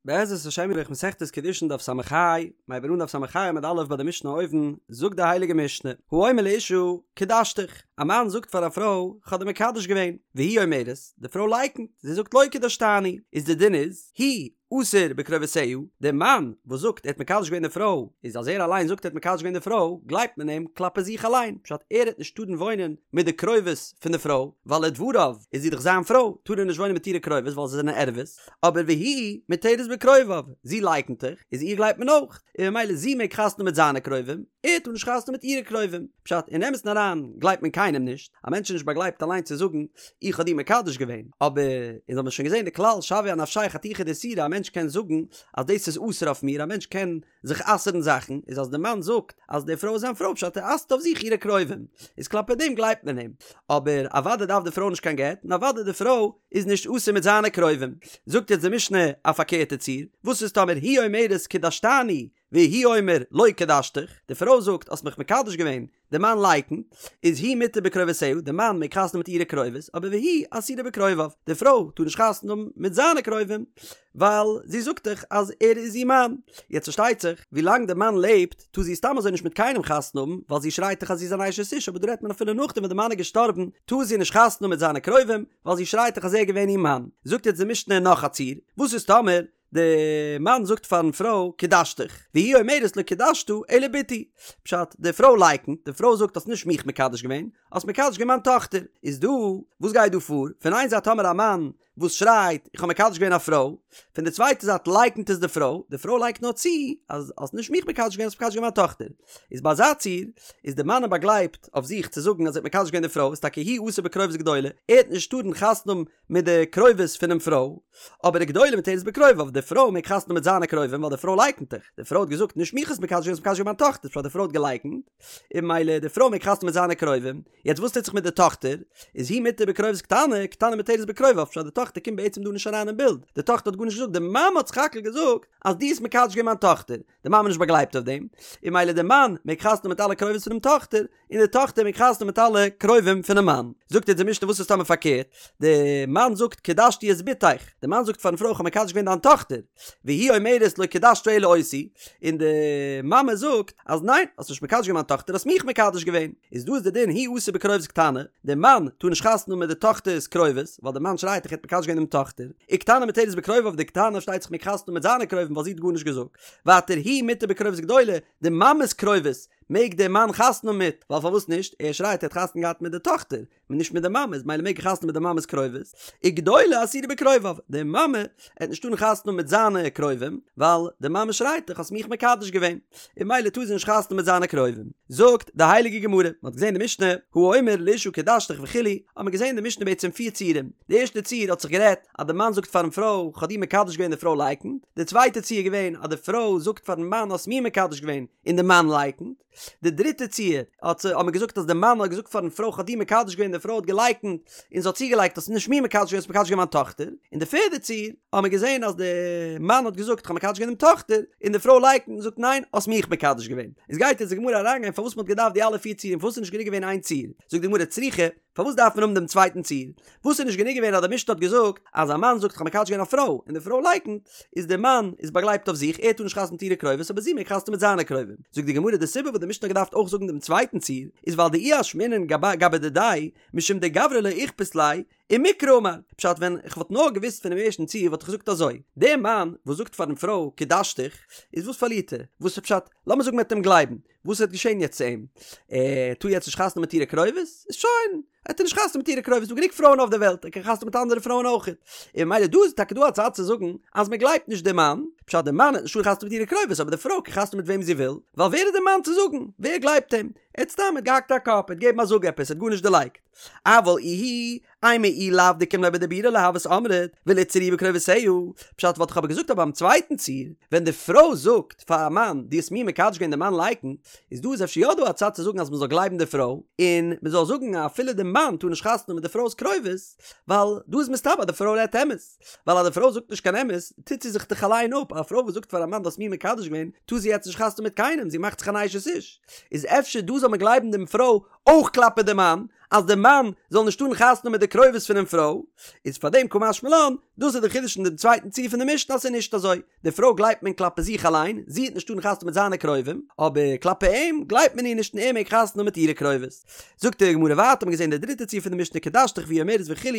בעזרת השם יתברך מסכת קידושין דף ס"ה, מ'הייבט אן דף ס"ה עמוד א' ביי די משנה אויבן, זאגט די הייליגע משנה, האומר לאשה קדשתיך, א מאן זאגט פאר א פרוי כ'האב דיר מקדש געווען, והיא אומרת, די פרוי לייקנט, זי זאגט לא קדשתני, איז די דין איז, הוא אסור בקרובותיה, די מאן וואס זאגט ער האט מקדש געווען די פרוי, איז אז ער אליין זאגט ער האט מקדש געווען די פרוי, גלייבט מען אים כלפי זיך אליין, פשט ער העט נישט טארן וואוינען מיט די קרובות פון די פרוי, ווייל לדבריו איז זי דאך זיין פרוי, טאר ער נישט וואוינען מיט אירע קרובות ווייל זיי זענען ערוות, אבער והיא מותרת בקרוביו, זי לייקנט דאך, איז איר גלייבט מען אויך, און ממילא זי מעג חתונה מיט זיינע קרובים, ער טאר נישט חתונה מיט אירע קרובים. פשט, אין אמת'ן אריין גלייבט מען קיינעם נישט, א מענטש איז נישט באגלייבט אליין צו זאגן איך האב דיר מקדש געווען, אבער אונז האבן שוין געזען די כלל שוויה אנפשיה חתיכה דאיסורא, א מענטש קען זאגן אז דאס איז אסור אויף מיר, א מענטש קען זיך אסר'ן זאכן, איז אז די מאן זאגט אז די פרוי איז זיין פרוי פשט ער אסר'ט אויף זיך אירע קרובים, איז כלפי דעם גלייבט מען אים, אבער אוודאי דארף די פרוי נישט קיין גט, און אוודאי די פרוי איז נישט אסור מיט זיינע קרובים. זאגט יעצט די משנה א פארקערטע ציור, וואס איז טאמער היא אומרת קדשתני והוא אומר לא קדשתיך, די פרוי זאגט האסט מיך מקדש געווען, די מאן לייקנט, איז הוא מותר בקרובותיה, די מאן מעג חתונה מיט אירע קרובות, אבער והיא אסורה בקרוביו, די פרוי טאר נישט חתונה האבן מיט זיינע קרובים, ווייל זי זאגט דאך אז ער איז איר מאן. יעצט פארשטייט זיך, ווילאנג די מאן לעבט, טאר זי סתם אזוי נישט מיט קיינעם חתונה האבן, ווייל זי שרייט דאך אז זי איז אן אשת איש, אבער דא רעדט מען אפילו נאכדעם ווען די מאן איז געשטארבן, טאר זי נישט חתונה האבן מיט זיינע קרובים, ווייל זי שרייט דאך אז ער איז געווען איר מאן. זאגט יעצט די משנה נאך א ציור, וואס איז טאמער די מאן זאגט פארן פרוי קדשתיך, והיא אומרת לא קדשת אלא בתי, פשט, די פרוי לייקנט, די פרוי זאגט האסט נישט מיך מקדש געווען, האסט מקדש געווען מיין טאכטער, איז דא, וואס גייט דא פאר, פון איין זייט האמער א מאן וואס שרייט איך האב מקדש געווען א פרוי, פון די צווייטע זייט לייקנט עס די פרוי, די פרוי לייגט נאר צו אז האסט נישט מיך מקדש געווען האסט מקדש געווען מיין טאכטער, איז ביי אזא ציור איז די מאן באגלייבט אויף זיך צו זאגן אז ער האט מקדש געווען די פרוי איז טאקע הוא אסור בקרובות גדולה, ער העט נישט טארן חתונה האבן מיט די קרובות פונעם פרוי, אבער וגדולה מותרת בקרוביו, די פרוי מעג חתונה מיט זיינע קרובים ווייל די פרוי לייקנט דאך, די פרוי האט געזאגט נישט מיך האסט מקדש געווען האסט מקדש געווען מיין טאכטער, פשט די פרוי האט געלייקנט, און ממילא די פרוי מעג חתונה מיט זיינע קרובים, יעצט וואס טוט זיך מיט די טאכטער? איז היא מותר בקרובות קטנה, קטנה מותרת בקרוביו, פשט די טאכטער קומט בעצם דא נישט אריין אין בילד, די טאכטער האט גארנישט געזאגט, די מאמע האט סך הכל געזאגט אז דו האסט מקדש געווען מיין טאכטער, די מאמע איז נישט באגלייבט אויף דעם, און ממילא די מאן מעג חתונה מיט אלע קרובות פונעם טאכטער, און די טאכטער מעג חתונה מיט אלע קרובים פונעם מאן. זאגט אונז די משנה וואס איז טאמער פארקערט, די מאן זאגט קדשתי את בתך, די מאן זאגט פארן פרוי איך האב מקדש געווען דיין טאכטער, והיא אומרת לא קדשת אלא אותי, און די מאמע זאגט אז ניין האסט נישט מקדש געווען מיין טאכטער האסט מיך מקדש געווען, איז דא איז די דין הוא אסור בקרובות קטנה, די מאן טאר נישט חתונה האבן מיט די טאכטער'ס קרובות, ווייל די מאן שרייט איך האט מקדש געווען דעם טאכטער, וקטנה מותרת בקרוביו די קטנה פארשטייט זיך מעג חתונה האבן מיט זיינע קרובים ווייל זי האט גארנישט געזאגט, ווייטער היא מותר בקרובות גדולה, די מאמע'ס קרובות מעג דער מאן חתונה האבן מיט, ווייל פארוואס נישט, ער שרייט ער האט חתונה געהאט מיט די טאכטער, און נישט מיט די מאמע, איז ממילא מעג ער חתונה מיט די מאמע'ס קרובות, וגדולה אסורה בקרוביו, די מאמע העט נישט טארן חתונה האבן מיט זיינע קרובים, ווייל די מאמע שרייט דאך האסט מיך מקדש געווען, און ממילא טאר זי נישט חתונה מיט זיינע קרובים. זאגט די הייליגע גמרא, מען האט געזען די משנה, האומר לאשה קדשתיך וכו', האט מען געזען די משנה בעצם פיר ציורים, די ערשטע ציור האט זיך גערעדט אז די מאן זאגט פארן פרוי כ'האב דיר מקדש געווען די פרוי לייקנט, די צווייטע ציור איז געווען אז די פרוי זאגט פארן מאן האסט מיר מקדש געווען און די מאן לייקנט, די דריטע ציור האט האט מען געזאגט אז די מאן האט געזאגט פארן פרוי כ'האב דיר מקדש געווען די פרוי האט געלייקנט און זי האט צוגעלייגט האסט נישט מיר מקדש געווען האסט מקדש געווען מיין טאכטער, און די פערדע ציור האט מען געזען אז די מאן האט געזאגט כ'האב מקדש געווען דעם טאכטער און די פרוי לייקנט און זאגט ניין האסט מיך מקדש געווען. איז גייט יעצט די גמרא אריינגיין פארוואס מען האט געדארפט די אלע פיר ציורים פארוואס איז נישט גענוג געווען איין ציור, זאגט די גמרא צריכא פארוואס דארף מען האבן דעם צווייטן ציור? וואס איז נישט גענוג געווען אז די משנה האט געזאגט אז א מאן זאגט כ'האב מקדש געווען א פרוי און די פרוי לייקנט, איז דער מאן איז באגלייבט אויף זיך ער טאר נישט חתונה מיט אירע קרובות אבער זי מעג חתונה מיט זיינע קרובים. זאגט די גמרא די סיבה וואס די משנה האט געדארפט אויך זאגן דעם צווייטן ציור איז ווייל דאי אשמעינן גבי דידיה משום דגברא לא איכפת ליה ומקרא אמר, פשט ווען איך וואלט נאר געוואוסט פונעם ערשטן ציור וואלט איך געזאגט אזוי, דער מאן וואס זאגט פארן פרוי קדשתיך איז וואס פארלירט ער? וואס איז פשט? לאמיר זאגן מ'וועט אים גלייבן, וואס וועט געשען יעצט צו אים? ער טאר יעצט נישט חתונה מיט אירע קרובות? איז שוין, ער טאר נישט חתונה מיט אירע קרובות, ס'דא גענוג פרויען אויף דער וועלט, ער קען חתונה מיט אנדערע פרויען אויך. און ממילא דא איז טאקע דא א צד צו זאגן אז מען גלייבט נישט דעם מאן, פשט דער מאן העט נישט טארן חתונה מיט אירע קרובות אבער די פרוי קען חתונה מיט וועם זי וויל, ווייל ווער איז דער מאן צו זאגן? ווער גלייבט אים? ער האט סתם ער האט געהאקט א קאפ, ער האט געגעבן א זאג עפעס, ער האט גארנישט דערלייגט. אבל איהי, אימא אי לאו דקים ליה בדיבורא לא הות אמרת, וליתסר איהו בקרובותיה, פשט וואלט איך אבער געזאגט אז ביים צווייטן ציור, ווען די פרוי זאגט פאר א מאן דו האסט מיר מקדש געווען די מאן לייקנט, איז דא איז אפשר יא דא א צד צו זאגן אז מען זאל גלייבן די פרוי, און מען זאל זאגן אז אפילו די מאן טאר נישט חתונה מיט די פרוי'ס קרובות, ווייל דא איז מסתבר אז די פרוי רעדט אמת, ווייל אז די פרוי זאגט נישט קיין אמת, טוט זי זיך דאך אליין אפ, א פרוי וואס זאגט פאר א מאן דו האסט מיר מקדש געווען, טאר זי יעצט נישט חתונה מיט קיינעם, זי מאכט זיך אן אשת איש, איז אפשר דא זאל מען גלייבן דעם פרוי אויך כלפי די מאן, אז די מאן זאל נישט טארן חתונה מיט די קרובות פונעם פרוי, איז פאר דעם קא משמע לן, דאס איז די חידוש אין דעם צווייטן ציור פון די משנה אז ס'איז נישט אזוי, די פרוי גלייבט מען כלפי זיך אליין, זי וועט נישט טארן חתונה מיט זיינע קרובים, אבער כלפי אים גלייבט מען איר נישט און ער מעג חתונה האבן מיט אירע קרובות. זאגט די גמרא ווייטער, האט מען געזען די דריטע ציור פון די משנה קדשתיך והיא אומרת וכו',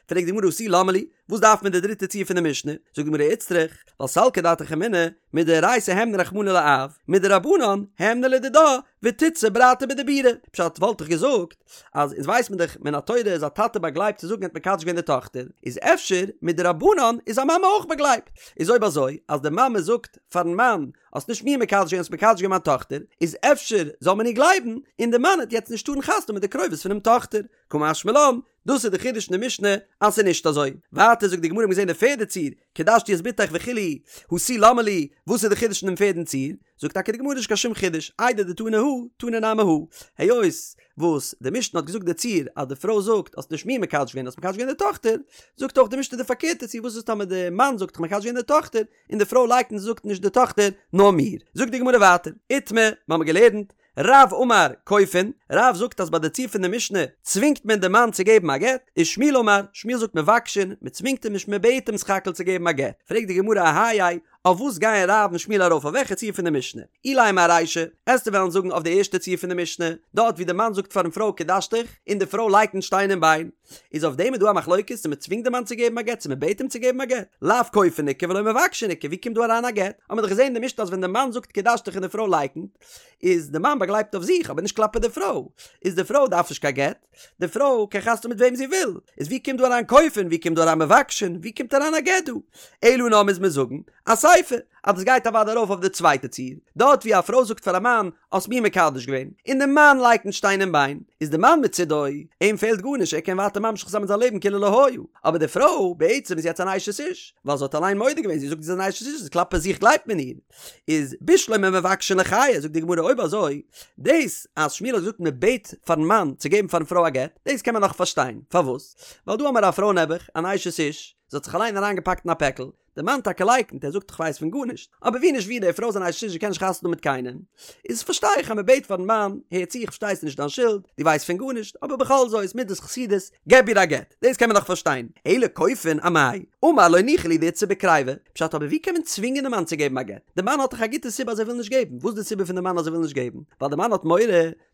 פרעגט די גמרא הא תו למה לי, וואס דארף מען די דריטע ציור פון די משנה? זאגט די גמרא איצטריך, ווייל סלקא דעתך אמינא, מדאורייתא הימנה רחמנא לאב, מדרבנן הימנה לדידה, ותיתסר ברתא בדיבורא. פשט וואלט איך געזאגט, אז אונז ווייס מען דאך מן התורה איז א טאטע באגלייבט צו זאגן ער האט מקדש געווען די טאכטער, איז אפשר מדרבנן איז א מאמע אויך באגלייבט? איז אויב אזוי אז די מאמע זאגט פארן מאן האסט נישט מיר מקדש געווען האסט מקדש געווען מיין טאכטער, איז אפשר זאל מען איר גלייבן, און די מאן העט יעצט נישט טארן חתונה מיט די קרובות פונעם טאכטער. קא משמע לן, דאס איז די חידוש אין די משנה אז ס'איז נישט אזוי. ווייטער זאגט די גמרא מ'האט געזען די פערדע ציור, קדשתי את בתך וכו', הא תו למה לי, וואס איז די חידוש אין דעם פערדן ציור? זאגט טאקע די גמרא נישט קיין שום חידוש, איידי דתנא הא, תנא נמי הא. היות וואס די משנה האט געזאגט די ציור אז די פרוי זאגט האסט נישט מיר מקדש געווען האסט מקדש געווען די טאכטער, זאגט אויך די משנה די פארקערטע ציור וואס איז טאמער די מאן זאגט כ'האב מקדש געווען די טאכטער און די פרוי לייקנט און זאגט נישט די טאכטער נאר מיר. זאגט די גמרא ווייטער, איתמר, מ'האמיר געלערנט, רב אמר כופין, רב זאגט אז ביי די ציור פון די משנה צווינגט מען די מאן צו געבן א גט, ושמואל אמר, שמואל זאגט מבקשין, מען צווינגט אים נישט מען בעט אים סך הכל צו געבן א גט, פרעגט די גמרא אהייא, אויף וואס גייען רב און שמואל ארויף אויף וועלכע ציור פון די משנה? אילימא ארישא, עסטו וועלן זאגן אויף די ערשטע ציור פון די משנה, דארט ווי די מאן זאגט פארן פרוי קדשתיך, און די פרוי לייקנט שטיין און ביין, איז אויף דעם איז דא א מחלוקת צו מען צווינגט די מאן צו געבן א גט צו מען בעט אים צו געבן א גט, לאו כופין איכא ולא מבקשין איכא, ווי קומט דא אריין א גט? האט מען דאך געזען אין די משנה אז ווען די מאן זאגט קדשתיך און די פרוי לייקנט, איז די מאן באגלייבט אויף זיך אבער נישט כלפי די פרוי, איז די פרוי דארף נישט קיין גט, די פרוי קען חתונה מיט וועם זי וויל, איז ווי קומט דא אריין כופין, ווי קומט דא אריין מבקשין, ווי קומט אריין א גט דא? אלא נאר מוז מען זאגן אסיפא, אז דאס גייט אוודאי ארויף אויף די צווייטע ציור, דארט ווי א פרוי זאגט פאר א מאן האסט מיר מקדש געווען, און די מאן לייקנט שטיין און ביין, איז די מאן מצידו, אים פעלט גארנישט ער קען ווייטער ממשיך זיין מיט זיין לעבן כאילו לא היה, אבער די פרוי בעצם איז יעצט אן אשת איש, ווייל זי האט אליין מודה געווען, זי זאגט זי איז אן אשת איש, איז כלפי זיך גלייבט מען איר. איז בשלמא מבקשין לחיי, זאגט די גמרא אויב אזוי, דאס אז שמואל האט געזאגט מען בעט פארן מאן צו געבן פארן פרוי א גט, דאס קען מען נאך פארשטיין, פארוואס? ווייל דא האמער א פרוי נעבעך, אן אשת איש, זי האט זיך אליין אריינגעפאקט אין א פעקל, די מאן טאקע לייקנט, ער זאגט איך ווייס פון גארנישט, אבער ווי נישט ווי די פרוי איז אן אשת איש זי קען נישט חתונה האבן מיט קיינעם, איז פארשטיי איך אז מען בעט פארן מאן, הער צו איך פארשטיי ס'איז נישט דיין שולד, דו ווייסט פון גארנישט, אבער בכל זאת מידת חסידות, געב איר א גט, דאס קען מען נאך פארשטיין, אלא כופין אמאי, אמר לא ניחא לי דאיתסי בקריבה, פשט אבער ווי קען מען צווינגען די מאן צו געבן א גט, די מאן האט דאך א גוטע סיבה אז ער וויל נישט געבן, וואס איז די סיבה פון די מאן אז ער וויל נישט געבן, ווייל די מאן האט מורא,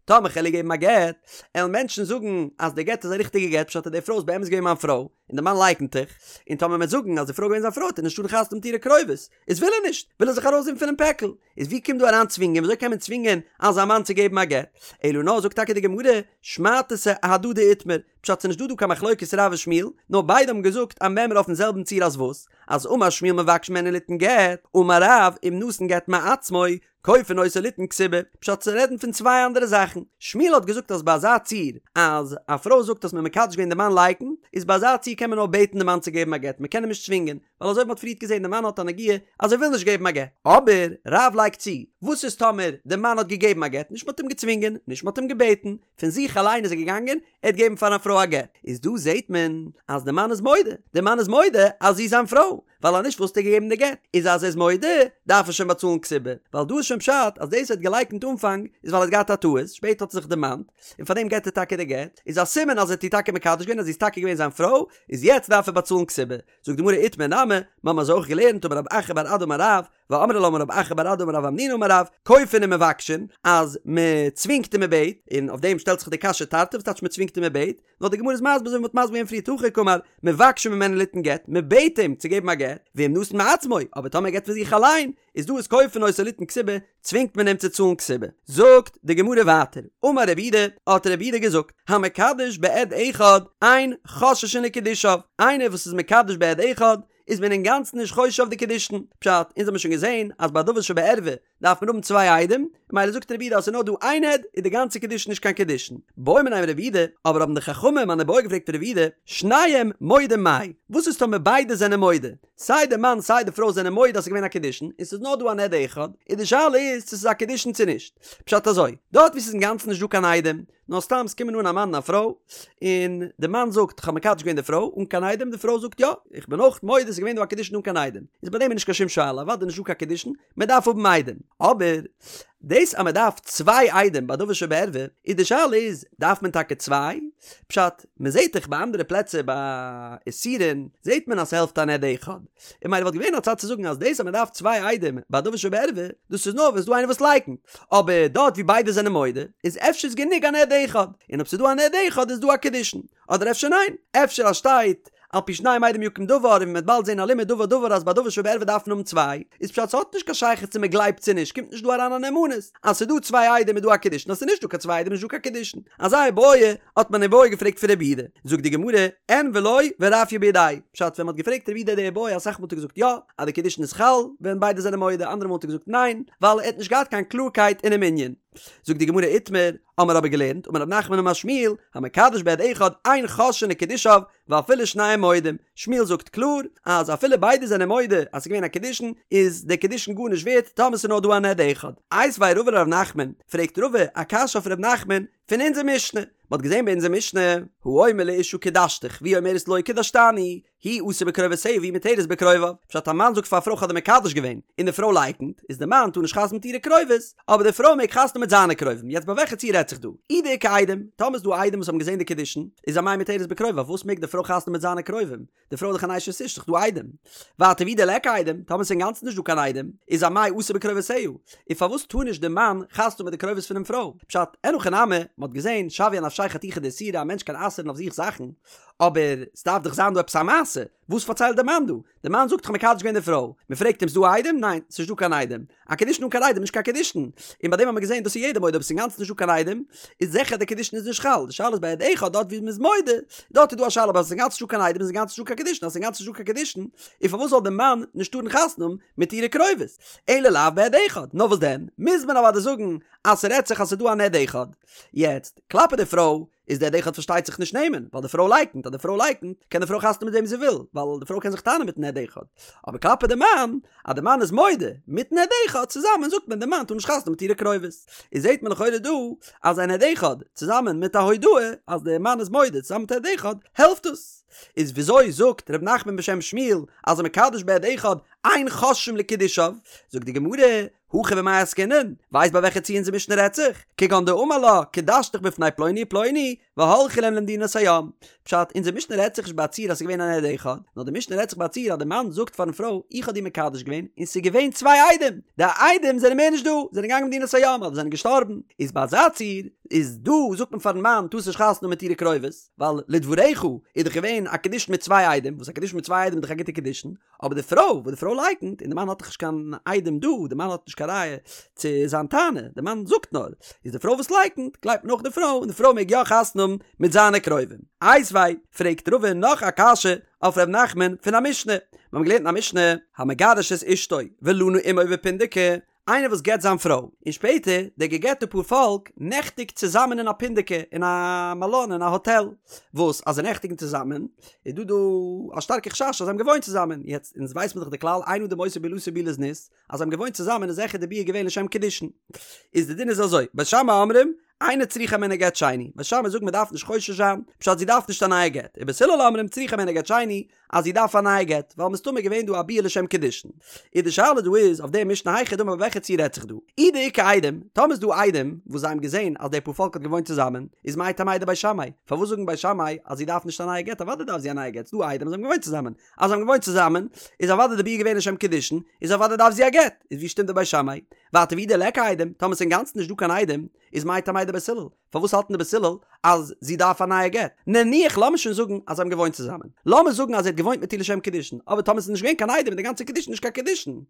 טאמער כ'על איר געבן א גט, עלן מענטשן זאגן אז די גט איז א ריכטיגע גט, פשט אז די פרוי איז באמת געווען מיין פרוי, און די מאן לייקנט דאך, און טאמער מ'עט זאגן אז די פרוי איז געווען זיין פרוי וועט ער נישט טארן חתונה האבן מיט אירע קרובות, איז וויל ער נישט, וויל ער זיך ארויסזעהן פונעם פעקל, איז ווי קומט דא אריין צווינגען, וויאזוי קען מען צווינגען אזא מאן צו געבן א גט? אלא נאר זאגט טאקע די גמרא, שמעתתא אהדדי איתמר, פשט ס'נישט דא דא קיין מחלוקת רב און שמואל, נאר ביידע האבן געזאגט א מימרא אויפן זעלבן ציור אז וואס? אז אמר שמואל מבקשין ממנו ליתן גט, אמר רב אם נתן גט מעצמו, כופין אותו ליתן כתובה, פשט זיי רעדן פון צוויי אנדערע זאכן, שמואל האט געזאגט אז ביי אזא ציור אז א פרוי זאגט אז מ'האט מקדש געווען די מאן לייקנט, איז ביי אזא ציור קען מען נאר בעטן די מאן צו געבן א גט, מ'קען אים נישט צווינגען, ווייל אזוי ווי מ'האט פריערט געזען די מאן האט א נגיעה אז ער וויל נישט געבן א גט. אבער רב לייגט צו, וואס איז טאמער די מאן האט געגעבן א גט, נישט מ'האט אים געצווינגען, נישט מ'האט אים געבעטן, פון זיך אליין איז ער געגאנגען, ער האט געגעבן פאר א פרוי א גט, איז דא זעט מען אז די מאן איז מודה, די מאן איז מודה אז זי איז זיין פרוי, ווייל אז נישט וואלסטו געגעבן די גט, איז אז ער איז מודה דארף ער שוין באצאלן כתובה, ווייל דא איז שוין פשט אז דאס ער האט געלייקנט אנפאנג איז ווייל ער האט געהאט א טעות, שפעטער האט ער זיך דערמאנט, און פארדעם געט ער טאקע די גט, איז א סימן אז ער האט איר טאקע מקדש געווען אז זי איז טאקע געווען זיין פרוי, איז יעצט דארף ער באצאלן כתובה. זאגט די גמרא איתמר נמי, מיר האבן אזוי אויך געלערנט אמר רב אחא בר אדא אמר רב, ואמרי לה אמר רב אחא בר אדא אמר רב המנונא אמר רב, כופין ומבקשין, אז מען צווינגט און מען בעט, און אויף דעם שטעלט זיך די קשיא תרתי וואס טייטש מען צווינגט און מען בעט, נאר די גמרא איז מסביר אזוי ווי מען האט מסביר געווען פריער הכי קאמר, מבקשין ממנו ליתן גט, מען בעט אים צו געבן א גט, ואם נתן מעצמו, אבער טאמער ער געבט פון זיך אליין, איז דא איז כופין אותו ליתן כתובה, צווינגט מען אים צו צאלן כתובה. זאגט די גמרא ווייטער, אמר רב יהודה, האט רב יהודה געזאגט, המקדש בעד אחד, אין חוששין לקידושיו, איינער וואס איז מקדש בעד אחד, איז מען אינגאנצן נישט חושש אויף די קידושין, פשט, אונז האבן שוין געזען אז ביי דבר שבערווה דארף מען האבן צוויי עדים, ממילא זאגט רב יהודה אז ס'איז נאר דא איין עד איז די גאנצע קידושין נישט קיין קידושין. בעו מיניה מרב יהודה, אבער האבן די חכמים אן איבעיא געפרעגט פון רב יהודה, שניהם מודים מאי, וואס איז טאמער ביידע זענען מודה, סיי די מאן סיי די פרוי זענען מודה אז ס'איז געווען א קידושין, און ס'איז נאר דא אן עד אחד, און די שאלה איז צו ס'איז א קידושין צו נישט. פשט אזוי, דארט וואו ס'איז אינגאנצן נישט דא קיין עדים, נאר סתם ס'קומען אן א מאן און א פרוי, און די מאן זאגט כ'האב מקדש געווען די פרוי אן קיין עדים, די פרוי זאגט יא, איך בין אויך מודה ס'איז געווען דא א קידושין אן קיין עדים, איז ביי דעם איז נישט קיין שום שאלה, אוודאי נישט דא קיין קידושין, מען דארף האבן עדים. אבער דאס אז מען דארף צוויי עדים ביי דבר שבערווה, איז די שאלה איז, דארף מען טאקע צוויי? פשט, מען זעט דאך ביי אנדערע פלעצער ביי איסורין זעט מען אז ס'העלפט אן עד אחד, און ממילא וואלט געווען א צד צו זאגן אז דאס אז מען דארף צוויי עדים ביי דבר שבערווה, דאס איז נאר ווען ס'דא איינער וואס לייקנט, אבער דארט ווי ביידע זענען מודה, איז אפשר איז גענוג אן עד אחד, און אויב ס'דא אן עד אחד איז דא א קידושין, אדער אפשר ניין, אפשר אז שטייט על פי שניים עדים יקום דבר און מ'וועט באלד זען א לימוד דבר דבר אז ביי דבר שבערווה דארף מען האבן צוויי, איז פשט ס'האט נישט קיין שייכות צו מ'גלייבט צו נישט, קומט נישט דא אריין א נאמנות, אז ס'דא צוויי עדים איז דא א קידושין אז ס'איז נישט דא קיין צוויי עדים איז נישט דא קיין קידושין, אזא איבעיא האט מען איבעיא געפרעגט פון רב יהודה, זאגט די גמרא, אין ולא ורפיא בידיה, פשט ווען מ'האט געפרעגט רב יהודה די איבעיא אסאך מאל האט ער געזאגט יא אז די קידושין איז חל ווען ביידע זענען מודה, אנדערע מאל האט ער געזאגט ניין ווייל ער האט נישט געהאט קיין קלארקייט אינעם ענין. זאגט די גמרא איתמר, האמער אבער געלערנט, אמר רב נחמן אמר שמואל, המקדש בעד אחד אין חוששין לקידושיו ואפילו שניהם מודים, שמואל זאגט קלאר אז אפילו ביידע זענען מודה אז ס'איז געווען א קידושין איז די קידושין גארנישט ווערט טאמער ס'איז נאר דא אן עד אחד. איתיביה רבא לרב נחמן, פרעגט רבא א קשיא אויף רב נחמן פון אונזער משנה, מ'האט געזען ביי אונזער משנה, האומר לאשה קדשתיך והיא אומרת לא קדשתני, הוא אסור בקרובותיה והיא מותרת בקרוביו, פשט א מאן זאגט פאר א פרוי כ'האב דיר מקדש געווען, און די פרוי לייקנט, איז די מאן טאר נישט חתונה מיט אירע קרובות, אבער די פרוי מעג חתונה מיט זיינע קרובים, יעצט ביי וועלכע ציור רעדט זיך דא? אי דאיכא עדים, טאמער איז דא עדים וואס האבן געזען די קידושין, איז אמאי מותרת בקרוביו, פארוואס מעג די פרוי חתונה מיט זיינע קרובים? די פרוי איז דאך אן אשת איש, ס'איז דאך דא עדים. ווייטער ואי דליכא עדים, טאמער ס'איז אינגאנצן נישט דא קיין עדים, איז אמאי אסור בקרובותיה, און פארוואס טאר נישט די מאן חתונה מיט די קרובות פונעם פרוי? פשט, אין הכי נמי, מ'האט געזען, שויא אנפשיה חתיכה דאיסורא, א מענטש קען אסר'ן אויף זיך זאכן, אבער ס'דארף דאך זיין דא עפעס א מעשה, וואס פארציילט די מאן דא? די מאן זאגט כ'האב מקדש געווען די פרוי, מ'פרעגט אים ס'דא עדים? ניין, ס'נישט דא קיין עדים. א קידושין אן קיין עדים איז נישט קיין קידושין. און ביי דעם האט מען געזען דאס איז יעדער מודה אויב ס'איז אינגאנצן נישט דא קיין עדים, איז זיכער די קידושין איז נישט חל. די שאלה איז ביי עד אחד דארט ווי מ'איז מודה, דארט איז דא א שאלה אבער אז ס'איז אינגאנצן נישט דא קיין עדים איז אינגאנצן נישט דא קיין קידושין, אז ס'איז אינגאנצן נישט דא קיין קידושין, און פארוואס זאל די מאן נישט טארן חתונה האבן מיט אירע קרובות? אלא לאו בעד אחד. נאר וואס דען? מוז מען אוודאי זאגן אז ס'רעדט זיך אז ס'איז דא אן עד אחד. יעצט, כלפי די פרוי, איז די עד אחד פארשטייט זיך נישט נאמן, ווייל די פרוי לייקנט, אז די פרוי לייקנט, קען די פרוי חתונה מיט וועם זי וויל, ווייל די פרוי קען זיך טענה'ן מיטן עד אחד. אבער כלפי די מאן, אז די מאן איז מודה, מיטן עד אחד צוזאמען זאגט מען די מאן טאר נישט חתונה מיט אירע קרובות. איז זעט מען לכאורה דא, אז אן עד אחד, צוזאמען מיט א הודאה, אז די מאן איז מודה צוזאמען מיט עד אחד, העלפט עס. איז וויאזוי זאגט ר' נחמן בשם שמואל, אז המקדש בעד אחד, אין חוששין לקידושיו? זאגט די גמרא, הכא במאי עסקינן, ווייסט ביי וועלכע ציור אונזער משנה רעדט זיך? כגון דאמר לה, קדשתיך בפני פלוני ופלוני, והלכו להם למדינת הים. פשט, אונזער משנה רעדט זיך נישט ביי א ציור אז ס'איז געווען אן עד אחד, נאר די משנה רעדט זיך ביי א ציור אז די מאן זאגט פארן פרוי, איך האב דיר מקדש געווען, און ס'איז געווען צוויי עדים, די עדים זענען מער נישט דא, זענען געגאנגען למדינת הים, אדער זענען געשטארבן, איז ביי אזא ציור, איז דא זאגט מען פארן מאן, טארסט נישט חתונה האבן מיט אירע קרובות, ווייל לדבריך איז דאך געווען א קידושין מיט צוויי עדים, וואס א קידושין מיט צוויי עדים איז דאך א גוטע קידושין, אבער די פרוי וואס די פרוי לייקנט און די מאן האט דאך נישט קיין עדים דא, די מאן האט נישט קיין ראיה צו זיין טענה, די מאן זאגט נאר, איז די פרוי וואס לייקנט, גלייבט מען אויך די פרוי און די פרוי מעג יא חתונה האבן מיט זיינע קרובים. איתיביה, פרעגט רבא נאך א קשיא אויף ר' נחמן פון א משנה, מיר האבן געלערנט אין א משנה, המגרש את אשתו ולנה עמו בפונדקי, איינער וואס גט זיין פרוי, און שפעטער די געגעטע פאר פאלק נעכטיגט צוזאמען אין א פונדקי, אין א מלון, אין א האטעל, וואס אז זיי נעכטיגן צוזאמען, איז דא דא א שטארקע חשש אז זיי האבן געוואוינט צוזאמען, יעצט אונז ווייס מיר דאך די כלל אין אדם עושה בעילתו בעילת זנות, אז זיי האבן געוואוינט צוזאמען איז זיכער די ביאה געווען לשם קידושין. איז די דין איז אזוי, בית שמאי אומרים, אינה צריכה הימנו גט שני, בית שמאי זאגן מען דארף נישט חושש זיין, פשט זי דארף נישט א נייע גט, ובית הלל אומרים צריכה הימנו גט שני, אז זי דארף א נייע גט, ווייל מסתמא איז געווען דא א ביאה לשם קידושין. איז די שאלה דא איז אויף די משנה היכי דמי ביי וועלכע ציור רעדט זיך דא? אי דאיכא עדים, טאמער איז דא עדים וואס זיי האבן געזען אז די פארפאלק האט געוואוינט צוזאמען, איז מאי טעמא דבית שמאי? פארוואס זאגן בית שמאי אז זי דארף נישט א נייע גט? אוודאי דארף זי א נייע גט, ס'דא עדים אז זיי האבן געוואוינט צוזאמען. אז זיי האבן געוואוינט צוזאמען, איז אוודאי די ביאה געווען לשם קידושין, איז אוודאי דארף זי א גט. איז ווי שטימט די בית שמאי? ווייטער ואי דליכא עדים, טאמער ס'איז אינגאנצן נישט דא קיין עדים, איז מאי טעמא דבית הלל? פארוואס האלטן די בית הלל אז זי דארף א נייע גט? נניח לאמיר שוין זאגן אז זיי האבן געוואוינט צוזאמען. לאמיר זאגן אז ער האט געוואוינט מיט איר לשם קידושין, אבער טאמער ס'איז נישט געווען קיין עדים איז די גאנצע קידושין נישט קיין קידושין.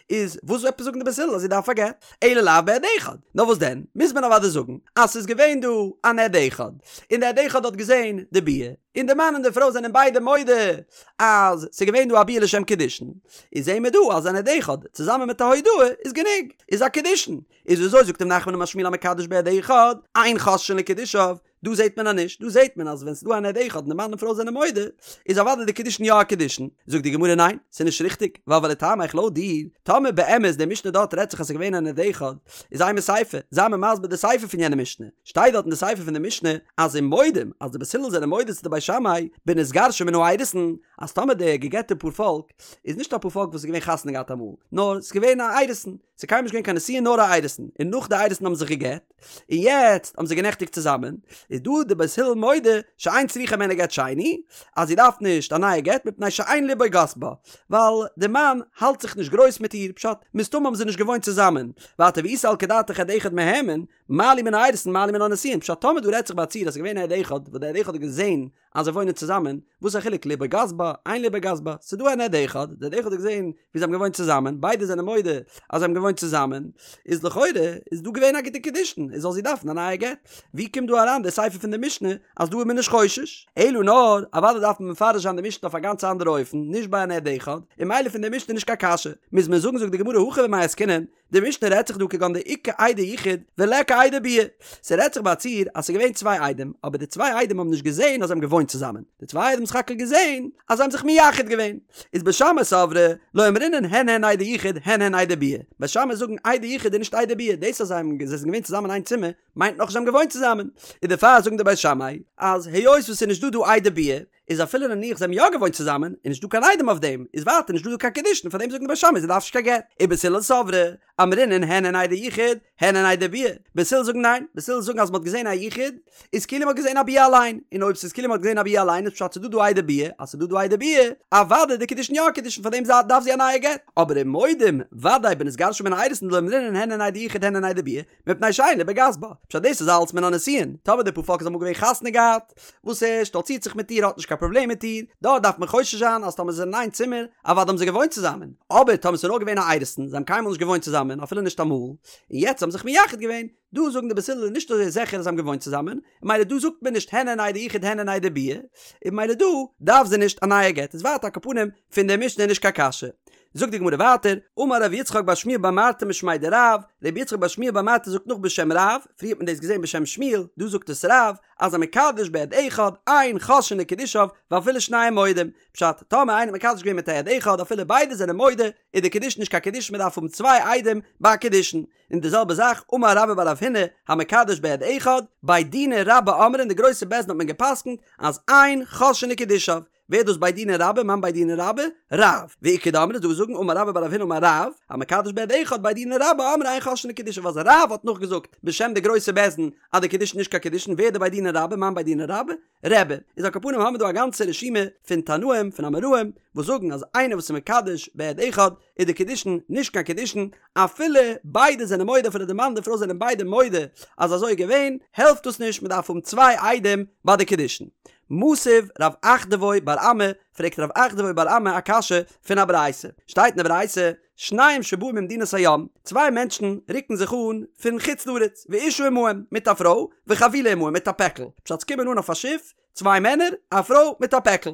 איז וואס עפעס זאגן די בית הלל אז זי דארף א גט? אלא לאו בעד אחד. נאר וואס דען? מוז מען אוודאי זאגן אז ס'איז געווען דא אן עד אחד, און די עד אחד האט געזען די ביאה, און די מאן און די פרוי זענען ביידע מודה אז ס'איז געווען דא א ביאה לשם קידושין. איז זעהן מיר דא אז אן עד אחד צוזאמען מיט א הודאה איז גענוג, איז א קידושין. איז וויאזוי זאגט ר' נחמן אמר שמואל המקדש בעד אחד, אין חוששין לקידושיו, דא זעט מען אז נישט, דא זעט מען אז ווען ס'איז דא אן עד אחד און די מאן און פרוי זענען מודה, איז אוודאי די קידושין יא א קידושין, זאגט די גמרא ניין, ס'איז נישט ריכטיג, ווייל ולטעמיך לויט דיר, טאמער באמת די משנה דארט רעדט זיך אז ס'איז געווען אן עד אחד, איז אימא סיפא, זיי מיר מסביר די סיפא פון יענע משנה, שטייט דארט אין די סיפא פון די משנה אז ומודים, אז די בית הלל זענען מודה צו די בית שמאי, בנתגרשה מן האירוסין, אז טאמער די געגעטע פארפאלק איז נישט א פארפאלק וואס איז געווען חתונה געהאט אמאל, נאר ס'איז געווען א אירוסין. ס'איז קיינמאל נישט געווען קיין נישואין נאר א אירוסין, און נאך די אירוסין האבן זיך גע'גט, און יעצט האבן זיי גענעכטיגט צוזאמען, איז דא די בית הלל מודה שאין צריכה הימנו גט שני, אז זי דארף נישט א נייע גט מפני שאין לבו גס בה, ווייל די מאן האלט זיך נישט גרויס מיט איר, פשט, מסתמא האבן זיי נישט געוואוינט צוזאמען, ווייטער ואי סלקא דעתך עד אחד מהימן, מה לי מן האירוסין מה לי מן הנישואין, פשט טאמער דא רעדט זיך ביי א ציור אז ס'איז געווען א עד אחד וואס די עד אחד האט געזען אז זיי וואוינען צוזאמען, וואס איז א חילוק לבו גס בה, אין לבו גס בה, ס'איז דא אן עד אחד, די עד אחד האט געזען ווי זיי האבן געוואוינט צוזאמען, ביידע זענען מודה אז זיי האבן געוואוינט צוזאמען, איז לכאורה איז דא געווען א גוטע קידושין, איז זאל זי דארפן א נייע גט. ווי קומט דא אריין די סיפא פון די משנה אז דא איז מען נישט חושש? אלא נאר, אוודאי דארף מען מפרש זיין די משנה אויף א גאנץ אנדערע אופן, נישט ביי אן עד אחד, און ממילא פון די משנה נישט קיין קשיא. מוז מען זאגן זאגט די גמרא הכא במאי עסקינן, די משנה רעדט זיך דא כגון דאיכא עדי יחוד וליכא עדי ביאה. ס'רעדט זיך ביי א ציור אז ס'איז געווען צוויי עדים, אבער די צוויי עדים האבן נישט געזען אז זיי האבן געוואוינט צוזאמען. די צוויי עדים האבן סך הכל געזען אז זיי האבן זיך מייחד געווען. איז בית שמאי סברי לא אמרינן הן הן עדי יחוד הן הן עדי ביאה. בית שמאי זאגן עדי יחוד איז נישט עדי ביאה. דאס אז זיי האבן זיי זענען געווען צוזאמען אין איין צימער מיינט נאכנישט זיי האבן געוואוינט צוזאמען. און דערפאר זאגן די בית שמאי אז היות וואס ס'איז נישט דא דא עדי ביאה איז אפילו נניח זיי האבן יא געוואוינט צוזאמען, איז נישט דא קיין עדים אויף דעם, איז ווייטער נישט דא דא קיין קידושין, פאר דעם זאגן די בית שמאי זי דארף נישט קיין גט. ובית הלל סברי, אמרינן הן הן עדי יחוד, הן הן עדי ביאה. בית הלל זאגן ניין, בית הלל זאגן אז מען האט געזען א יחוד, איז כאילו מען האט געזען א ביאה אליין, און אויב ס'איז כאילו מען האט געזען א ביאה אליין איז פשט ס'איז דא דא עדי ביאה, אז ס'איז דא דא עדי ביאה, אוודאי די קידושין יא קידושין פאר דעם דארף זי א נייע גט. אבער ומודים, ודאי בנתגרשה מן האירוסין דלא אמרינן הן הן עדי יחוד הן הן עדי ביאה, מפני שאין לבו גס בה. פשט דאס איז אלץ מן הנישואין, טאמער די פארפאלק איז אמאל געווען חתונה געהאט, וואס ער שטאלצירט זיך מיט איר האט נישט קיין פראבלעם מיט איר, דארט דארף מען חושש זיין אז טאמער זיי זענען אין איין צימער, אוודאי האבן זיי געוואוינט צוזאמען, אבער טאמער ס'איז נאר געווען א אירוסין, זיי האבן קיינמאל נישט געוואוינט צוזאמען אפילו נישט אמאל, און יעצט האבן זיך מייחד געווען, דא זאגן די בית הלל נישט אזוי זיכער אז זיי האבן געוואוינט צוזאמען, ממילא דא זאגט מען נישט הן הן עדי יחוד הן הן עדי ביאה, און ממילא דא דארף זי נישט א נייע גט, איז ווייטער על כל פנים פון די משנה נישט קיין קשיא. זאגט די גמרא ווייטער, אמר רב יצחק בר שמואל בר מרתא משמיה דרב, רב יצחק בר שמואל בר מרתא זאגט נאך בשם רב, פריער האט מען דאס געזען בשם שמואל, דא זאגט עס רב, אז המקדש בעד אחד, אין חוששין לקידושיו, ואפילו שניהם מודים. פשט, טאמער איינער האט מקדש געווען מיט א עד אחד אפילו ביידע זענען מודה, איז די קידושין נישט קיין קידושין מען דארף האבן צוויי עדים ביי א קידושין. און די זעלבע זאך, אמר רבה בר רב הונא, המקדש בעד אחד, בי דינא רבה אמרי אין די גרויסע בית דין האט מען געפסקנט אז אין חוששין לקידושיו, ווער איז דאס בי דינא רבה? מאן בי דינא רבה? רב. ואיכא דאמרי דא זאגן אמר רבה בר רב הונא אמר רב, המקדש בעד אחד בי דינא רבה אמרי אין חוששין לקידושיו אז רב האט נאכגעזאגט בשם די גרויסע בית דין אז די קידושין נישט קיין קידושין ווער די בי דינא רבה? מאן בי דינא רבה? רבי. איז על כל פנים האמיר דא א גאנצע רשימה פון תנאים פון אמוראים וואס זאגן אז איינער וואס איז מקדש בעד אחד איז די קידושין נישט קיין קידושין אפילו ביידע זענען מודה אפילו די מאן און די פרוי זענען ביידע מודה אז אזוי איז געווען העלפט דאס נישט מען דארף האבן צוויי עדים ביי די קידושין. מתיב רב אחדבוי בר אמי, פרעגט רב אחדבוי בר אמי א קשיא פון א ברייתא, שטייט אין די ברייתא, שניים שבאו ממדינת הים, צוויי מענטשן רוקן זיך אן פון חוץ לארץ, ואשה עמהם, מיט א פרוי, וחבילה עמהם, מיט א פעקל, פשט ס'קומען אן אויף א שיף, צוויי מענער, א פרוי מיט א פעקל,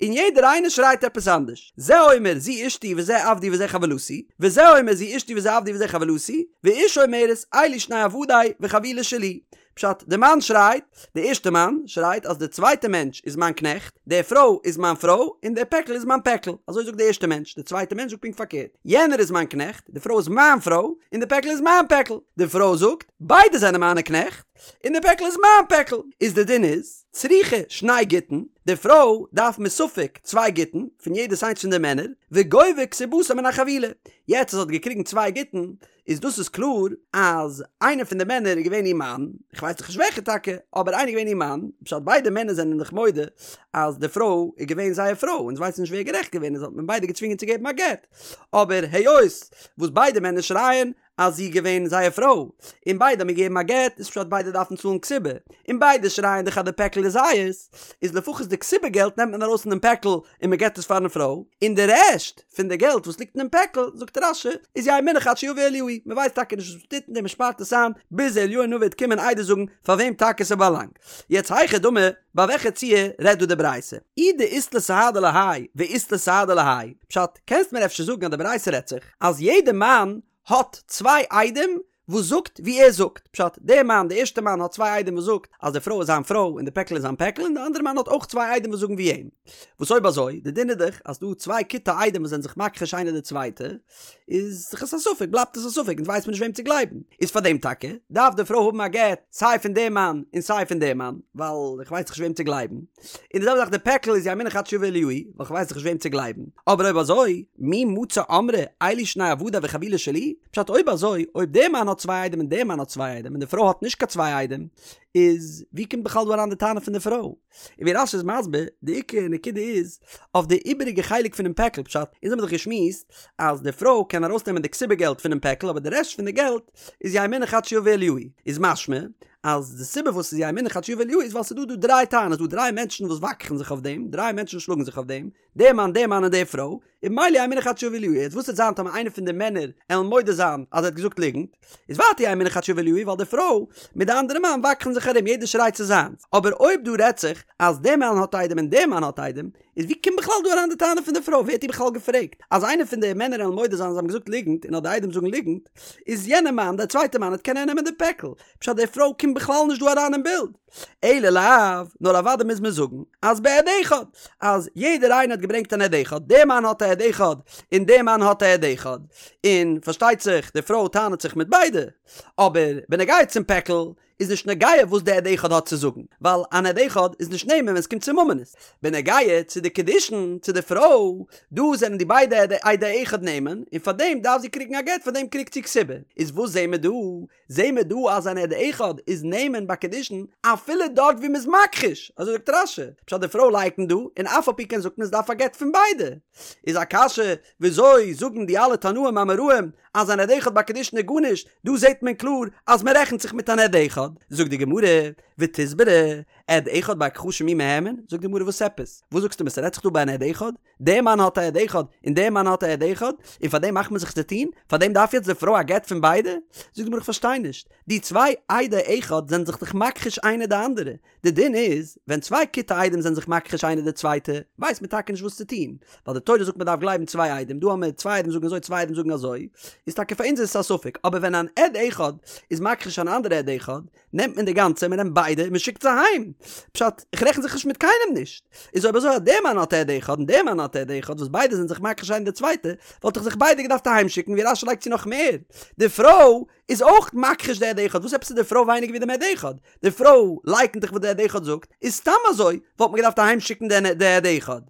און יעדער איינער שרייט עפעס אנדערש, זה אומר זו אשתי וזה עבדי וזה חבילתי, וזה אומר זו אשתי וזה עבדי וזה חבילתי, ואשה אומרת אלו שני עבדי וחבילה שלי, פשט, די מאן שרייט, די ערשטע מאן שרייט אז די צווייטע מענטש איז מיין קנעכט, די פרוי איז מיין פרוי, און די פעקל איז מיין פעקל. אזוי זאגט די ערשטע מענטש. די צווייטע מענטש זאגט פונקט פארקערט, יענער איז מיין קנעכט, די פרוי איז מיין פרוי, און די פעקל איז מיין פעקל. די פרוי זאגט, ביידע זענען מיינע קנעכט, און די פעקל איז מיין פעקל. איז די דין איז, צריכה שני גיטין, די פרוי דארף מספק צוויי גיטין, פון יעדעס איינס פון די מענער, וגובה כתובתה מן החבילה. יעצט אז זי האט געקריגן צוויי גיטין, איז דאס איז קלאר אז איינער פון די מענער איז געווען איר מאן, איך ווייס דאך נישט וועלכע טאקע, אבער איינער איז געווען איר מאן, פשט ביידע מענער זענען דאך מודה אז די פרוי איז געווען זייער פרוי, אונז ווייסן נישט ווער גערעכט געווען איז האט מען ביידע געצווינגען צו געבן א גט, אבער היות וואס ביידע מענער שרייען אז זי איז געווען זייער פרוי, און ביידע האבן געגעבן א גט, איז פשט ביידע דארפן צאלן כתובה, און ביידע שרייען דאך אז די פעקל איז זייערס, איז לפחות די כתובה געלט נעמט מען ארויס פון דעם פעקל און מען געבט עס פארן פרוי, און די רעשט פון די געלט וואס ליגט אינעם פעקל, זאגט רש"י, איז יהא מונח עד שיבא אליהו, מען ווייסט טאקע נישט וואס מען טוט מיט דעם, מען שפארט עס איין ביז אליהו הנביא וועט קומען עדות זאגן פאר וועם טאקע ס'באלאנגט. יעצט היכי דמי, ביי וועלכע ציור רעדט דא די ברייתא? אי דאית ליה סהדי להאי ואית ליה סהדי להאי, פשט, קענסט מיר אפשר זאגן אז די ברייתא רעדט זיך אז יעדע מאן האט צוויי עדים? וואס זאגט ווי ער זאגט, פשט, דער מאן, דער ערשטער מאן האט צוויי עדים וואס זאגט אז די פרוי איז זיין פרוי און די פעקל איז זיין פעקל און די אנדערע מאן האט אויך צוויי עדים וואס זאגן ווי אים. וואס אויב אזוי, די דין איז דאך אז ס'דא צוויי כיתי עדים וואס זענען זיך מכחיש איינער די צווייטע, איז דאך עס א ספק, בלייבט עס א ספק, אונז ווייסט מען נישט וועם צו גלייבן. איז פאר דעם טאקע דארף די פרוי האבן א גט סיי פון דעם מאן און סיי פון דעם מאן, ווייל איך ווייס דאך נישט וועם צו גלייבן. און די זעלבע זאך די פעקל איז יהא מונח עד שיבא אליהו, ווייל איך ווייס דאך נישט וועם צו גלייבן. אבער אויב אזוי, מי מצי אמרה אלו שני עבדי וחבילה שלי? פשט אויב אזוי, אויב דער מאן האט צוויי עדים און דער מאן האט צוויי עדים און די פרוי האט נישט קיין צוויי עדים, איז ווי קומט בכלל דא אריין די טענה פון די פרוי? און ווי רש"י איז מסביר, די עיקר נקודה איז אויף די איבעריגע חלק פונעם פעקל, פשט, אונז האבן דאך געשמועסט אז די פרוי קען ארויסנעמען די כתובה געלט פונעם פעקל אבער די רעשט פון די געלט איז יהא מונח עד שיבא אליהו, איז משמע אז די סיבה וואס ס'איז יהא מונח עד שיבא אליהו איז ווייל ס'איז דא דא דריי טענות, דא דריי מענטשן וואס וואקכן זיך אויף דעם, דריי מענטשן שלאגן זיך אויף דעם, דער מאן, דער מאן און די פרוי, און ממילא יהא מונח עד שיבא אליהו, יעצט וואס וועט זיין טאמער איינער פון די מענער עלן מודה זיין אז ער האט געזאגט ליגנט, איז ווייטער יהא מונח עד שיבא אליהו ווייל די פרוי מיט די אנדערע מאן וואקכן זיך ארום יעדער שרייט ס'איז זיינס, אבער אויב דא רעדט זיך אז דער מאן האט עדים און דער מאן האט עדים, איז ווי קומט בכלל דא אריין די טענה פון די פרוי, ווער האט איר בכלל געפרעגט? אז איינער פון די מענער עלן מודה זיין אז זיי האבן געזאגט ליגנט און אז די עדים זאגן ליגנט, איז יענער מאן, דער צווייטער מאן, וועט קענען נעמען די פעקל, פשט די פרוי קומט בכלל נישט דא אריין אין בילד. אלא לאו, נאר אוודאי מוז מען זאגן אז בעד אחד, אז יעדער איינער האט געברענגט אן עד אחד, דער מאן האט א עד אחד און דער מאן האט א עד אחד, און פארשטייט זיך די פרוי טענה'ט זיך מיט ביידע, אבער בנוגע צום פעקל איז נישט נוגע וואס די עד אחד האט צו זאגן, ווייל אן עד אחד איז נישט נאמן ווען עס קומט צו ממונות. בנוגע צו די קידושין צו די פרוי, דא זענען די ביידע עדי אחד נאמן, און פארדעם דארף זי קריגן א גט, פארדעם קריגט זי כתובה. איז וואס זעהן מיר דא? זעהן מיר דא אז אן עד אחד איז נאמן ביי קידושין אפילו דארט ווי מ'איז מכחיש, אזוי זאגט רש"י, פשט די פרוי לייקנט דא, און אף על פי כן זאגט מען עס דארף א גט פון ביידע. איז א קשיא, וויאזוי זאגן די אלע תנאים אמוראים אז אן עד אחד ביי קידושין איז גארנישט, דא זעהט מען קלאר אז מ'רעכנט זיך מיט אן עד אחד. זאגט די גמרא, ותסברא, עד אחד בהכחשה מי מהימן, זאגט די גמרא וואס עפעס? וואס זאגסטו מיר ס'רעדט זיך דא ביי אן עד אחד? דער מאן האט א עד אחד און דער מאן האט א עד אחד, און פאר דעם מאכט מען זיך צו טון? פאר דעם דארף יעצט די פרוי א גט פון ביידע? זאגט די גמרא איך פארשטיי נישט, די צוויי עדי אחד זענען זיך דאך מכחיש איינער די אנדערע, די דין איז, ווען צוויי כיתי עדים זענען זיך מכחיש איינער די צווייטע, ווייסט מען טאקע נישט וואס צו טון, ווייל די תורה זאגט מען דארף גלייבן צוויי עדים, דא האמיר צוויי עדים זאגן אזוי צוויי עדים זאגן אזוי, איז טאקע פאר אונז איז עס א ספק, אבער ווען אן עד אחד איז מכחיש אן אנדערע עד אחד, נעמט מען די גאנצע, מען נעמט ביידע און מען שיקט זיי אהיים. פשט, איך רעכן זיך נישט מיט קיינעם נישט. איז אויב אזוי אז דער מאן האט עד אחד און דער מאן האט עד אחד וואס ביידע זענען זיך מכחיש איינער די צווייטע, וואלט איך זיך ביידע געדארפט אהיים שיקן, ווי רש"י לייגט צו נאך מער, די פרוי איז אויך מכחיש די עד אחד, וואס עפעס איז די פרוי ווייניגער ווי דעם עד אחד? די פרוי לייקנט דאך וואס די עד אחד זאגט, איז סתם אזוי וואלט מען געדארפט אהיים שיקן די עד אחד.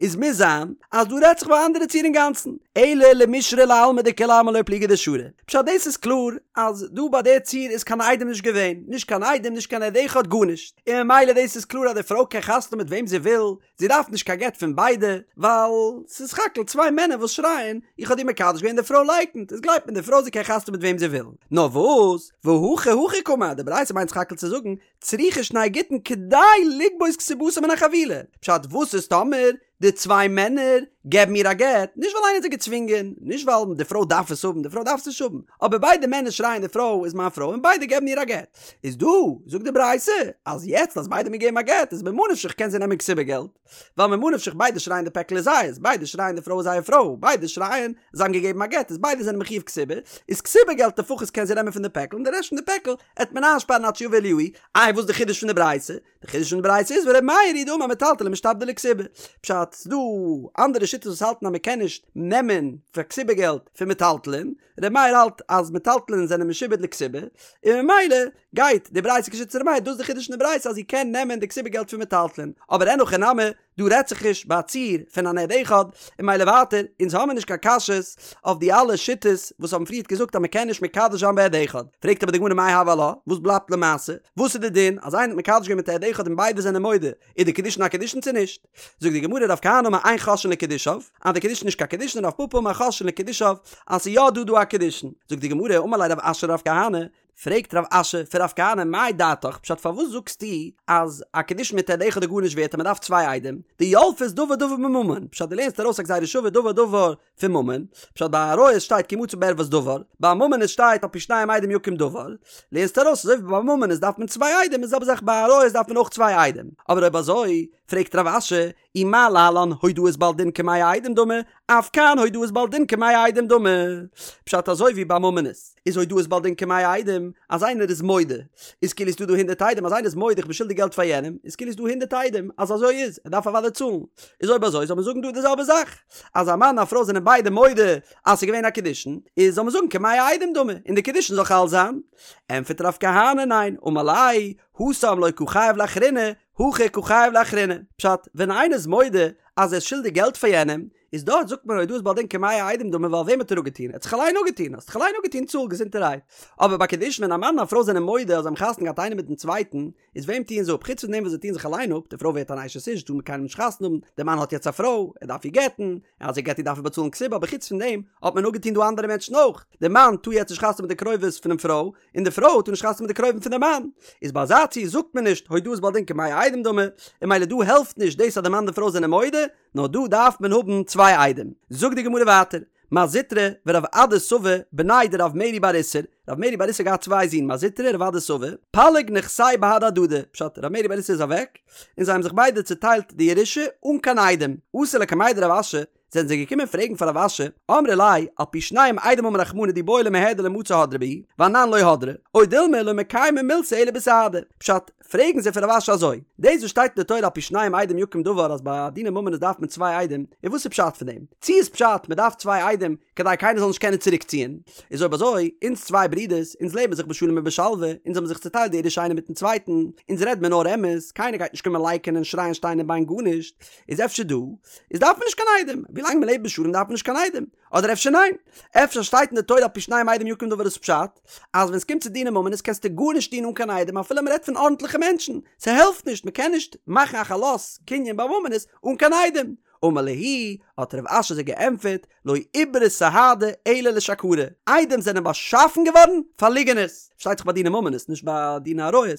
איז מוז זיין אז דא רעדט זיך ביי א אנדערע ציור אינגאנצן, אלא למישרי לעלמא דכולי עלמא לא פליגי דשרי. פשט דאס איז קלאר אז דא ביי די ציור איז קיין עדים נישט געווען, נישט קיין עדים נישט קיין עד אחד גארנישט, און ממילא דאס איז קלאר אז די פרוי קען חתונה מיט וועם זי וויל, זי דארף נישט קיין גט פון ביידע, ווייל ס'איז סך הכל צוויי מענער וואס שרייען איך האב דיר מקדש געווען די פרוי לייקנט, איז גלייבט מען די פרוי זי קען חתונה מיט וועם זי וויל. נאר וואס, והכא הכי קאמר, די ברייתא מיינט סך הכל צו זאגן צריכה שני גיטין כדי לגבות כתובתה מן החבילה, פשט וואס איז טאמער די צוויי מענער געבן איר א גט, נישט ווייל איינער האט זיי געצווינגען, נישט ווייל די פרוי דארף עס האבן, די פרוי דארף עס נישט האבן, אבער ביידע מענער שרייען די פרוי איז מיין פרוי און ביידע געבן איר א גט, איז דא זאגט די ברייתא אז יעצט אז ביידע האבן געגעבן א גט איז ממה נפשך קען זי נעמען כתובה געלט, ווייל ממה נפשך ביידע שרייען די פעקל איז זייערס, ביידע שרייען די פרוי איז זייער פרוי, ביידע שרייען זיי האבן געגעבן א גט איז ביידע זענען מחיוב כתובה, איז כתובה געלט לפחות קען זי נעמען פון די פעקל און די רעשט פון די פעקל עט מען איינשפארן עד שיבא אליהו, איי וואס די חידוש פון די ברייתא? די חידוש פון די ברייתא איז ור' מאיר היא דאמר מטלטלין משתעבדי לכתובה, פשט ס'דא אנדערע שיטות וואס האלטן אז מ'קען נישט נעמען פאר כתובה געלט פון מטלטלין, ר' מאיר האלט אז מטלטלין זענען משועבד לכתובה, און ממילא גייט די ברייתא כשיטת ר' מאיר, דאס איז די חידוש פון די ברייתא אז זי קען נעמען די כתובה געלט פון מטלטלין, אבער אין הכי נמי, דא רעדט זיך נישט ביי א ציור פון אן עד אחד, און ממילא ווייטער, אונז האמיר נישט קיין קשיות אויף די אלע שיטות וואס האבן פריערט געזאגט אז מ'קען נישט מקדש זיין בעד אחד. פרעגט אבער די גמרא מאי הוי עלה, וואס בלייבט למעשה? וואס איז די דין אז איינער האט מקדש געווען מיט א עד אחד און ביידע זענען מודה, איז די קידושין א קידושין צו נישט? זאגט די גמרא רב כהנא אמר אין חוששין לקידושיו, אז די קידושין איז נישט קיין קידושין רב פפא אמר חוששין לקידושיו, אז ס'איז יא דא דא א קידושין. זאגט די גמרא אמר ליה רב אשי לרב כהנא, פרעגט רב אשי פון רב כהנא מאי דעתך, פשט פארוואס זאגסטו אז א קידושין מיט עד אחד איז גארנישט ווערט און מען דארף צוויי עדים, דילפת דבר דבר מממון, פשט דו לערנסט ארויס א גזירה שווה דבר דבר פון ממון, פשט ביי עריות שטייט כי מצא בה ערות דבר, ביי ממון שטייט על פי שניים עדים יקום דבר, לערנסט ארויס אזוי ווי ביי ממון איז דארף מען צוויי עדים איז זעלבע זאך ביי עריות דארף מען אויך צוויי עדים, אבער אויב אזוי. פרעגט רב אשי, אי מה להלן הודאת בעל דין כמאה עדים דמי, אף כאן הודאת בעל דין כמאה עדים דמי. פשט אזוי ווי ביי ממונות איז הודאת בעל דין כמאה עדים, אז איינער איז מודה איז כאילו ס'דא דא הונדערט עדים, אז איינער איז מודה איך בין שולדיג געלט פאר יענעם, איז כאילו ס'דא הונדערט עדים אז אזוי איז, ער דארף אוודאי צאלן. איז אויב אזוי זאל מען זאגן דא די זעלבע זאך, אז א מאן און א פרוי זענען ביידע מודה אז ס'איז געווען א קידושין, איז זאל מען זאגן כמאה עדים דמי, און די קידושין זאל חל זיין. ענטפערט רב כהנא ניין, אמר ליה, התם לא קא חייב לאחריני, הכא קא חייב לאחריני. פשט, ווען איינער איז מודה אז ער איז שולדיג געלט פאר יענעם, איז דארט זאגט מען הודאת בעל דין כמאה עדים דמי ווייל וועם האט ער אפגעטון? ער האט זיך אליין אפגעטון, האסט דיך אליין אפגעטון צאל געזונטערהייט. אבער ביי קידושין ווען א מאן און א פרוי זענען מודה אז זיי האבן חתונה געהאט איינער מיטן צווייטן, איז וועם טוען זיי אפ? חוץ פון דעם וואס זיי טוען זיך אליין אפ, די פרוי ווערט אן אשת איש, טאר מיט קיינעם נישט חתונה האבן, דער מאן האט יעצט א פרוי, ער דארף איר גט'ן, און אז ער גט איר דארף ער באצאלן כתובה, אבער חוץ פון דעם האט מען אפגעטון דא אנדערע מענטשן אויך, דער מאן טאר יעצט נישט חתונה האבן מיט די קרובות פונעם פרוי, און די פרוי טאר נישט חתונה האבן מיט די קרובים פון דעם מאן, איז ביי אזא ציור זאגט מען נישט הודאת בעל דין כמאה עדים דמי, און ממילא דא העלפט נישט דאס אז די מאן און די פרוי זענען מודה, נאר דא דארף מען האבן צוויי עדים. זאגט די גמרא ווייטער, מר זוטרא ורב אדא סבא בני דרב מרי בר איסור, רב מרי בר איסור האט געהאט צוויי זין מר זוטרא און רב אדא סבא, פלוג נכסייהו בהדי הדדי, פשט רב מרי בר איסור איז אוועק, און זיי האבן זיך ביידע צוטיילט די ירושה אן קיין עדים, אתו לקמיה דרב אשי, זענען זיי געקומען פרעגן פאר רב אשי, אמרי ליה, על פי שנים עדים אמר רחמנא דאי בעי למיהדר למצי הדרי בהו, ואנן לא הדרי, או דילמא לא מקיימי מילתא אלא בסהדי, פשט, פרעגן זיי פון רב אשי אזוי, דאס וואס שטייט אין די תורה על פי שנים עדים יקום דבר אז ביי דיני ממונות דארף מען צוויי עדים, און וואס איז פשט פון דעם? צי איז פשט מען דארף צוויי עדים כדי קיינער זאל נישט קענען צוריק ציען? איז אויב אזוי, אונז צוויי ברידערס, אונז לעבן זיך בשלום ובשלווה, אונז האבן זיך צוטיילט די ירושה איינער מיטן צווייטן, אונז רעד מיר נאר אמת, קיינער גייט נישט קומען לייקענען שרייען שטיין און ביין גארנישט, איז אפשר דא איז דארף מען נישט קיין עדים, ווילאנג מען לעבט בשלום דארף מען נישט קיין עדים, אדער אפשר ניין? אפשר שטייט אין די תורה על פי שנים עדים יקום דבר איז פשט אז ווען סקומט צו דיני ממונות קענסטו גארנישט טון אן קיין עדים אפילו מ'רעדט פון ארנטליכע מענטשן, ס'העלפט נישט מ'קען נישט מאכן א חלות קנין ביי ממונות אן קיין עדים. אמר להו, האט רב אשי זיי געענטפערט, לא איברו סהדי אלא לשקרי, עדים זענען באשאפן געווארן פאר ליגענערס, פארשטייט זיך ביי דיני ממונות נישט ביי דיני עריות,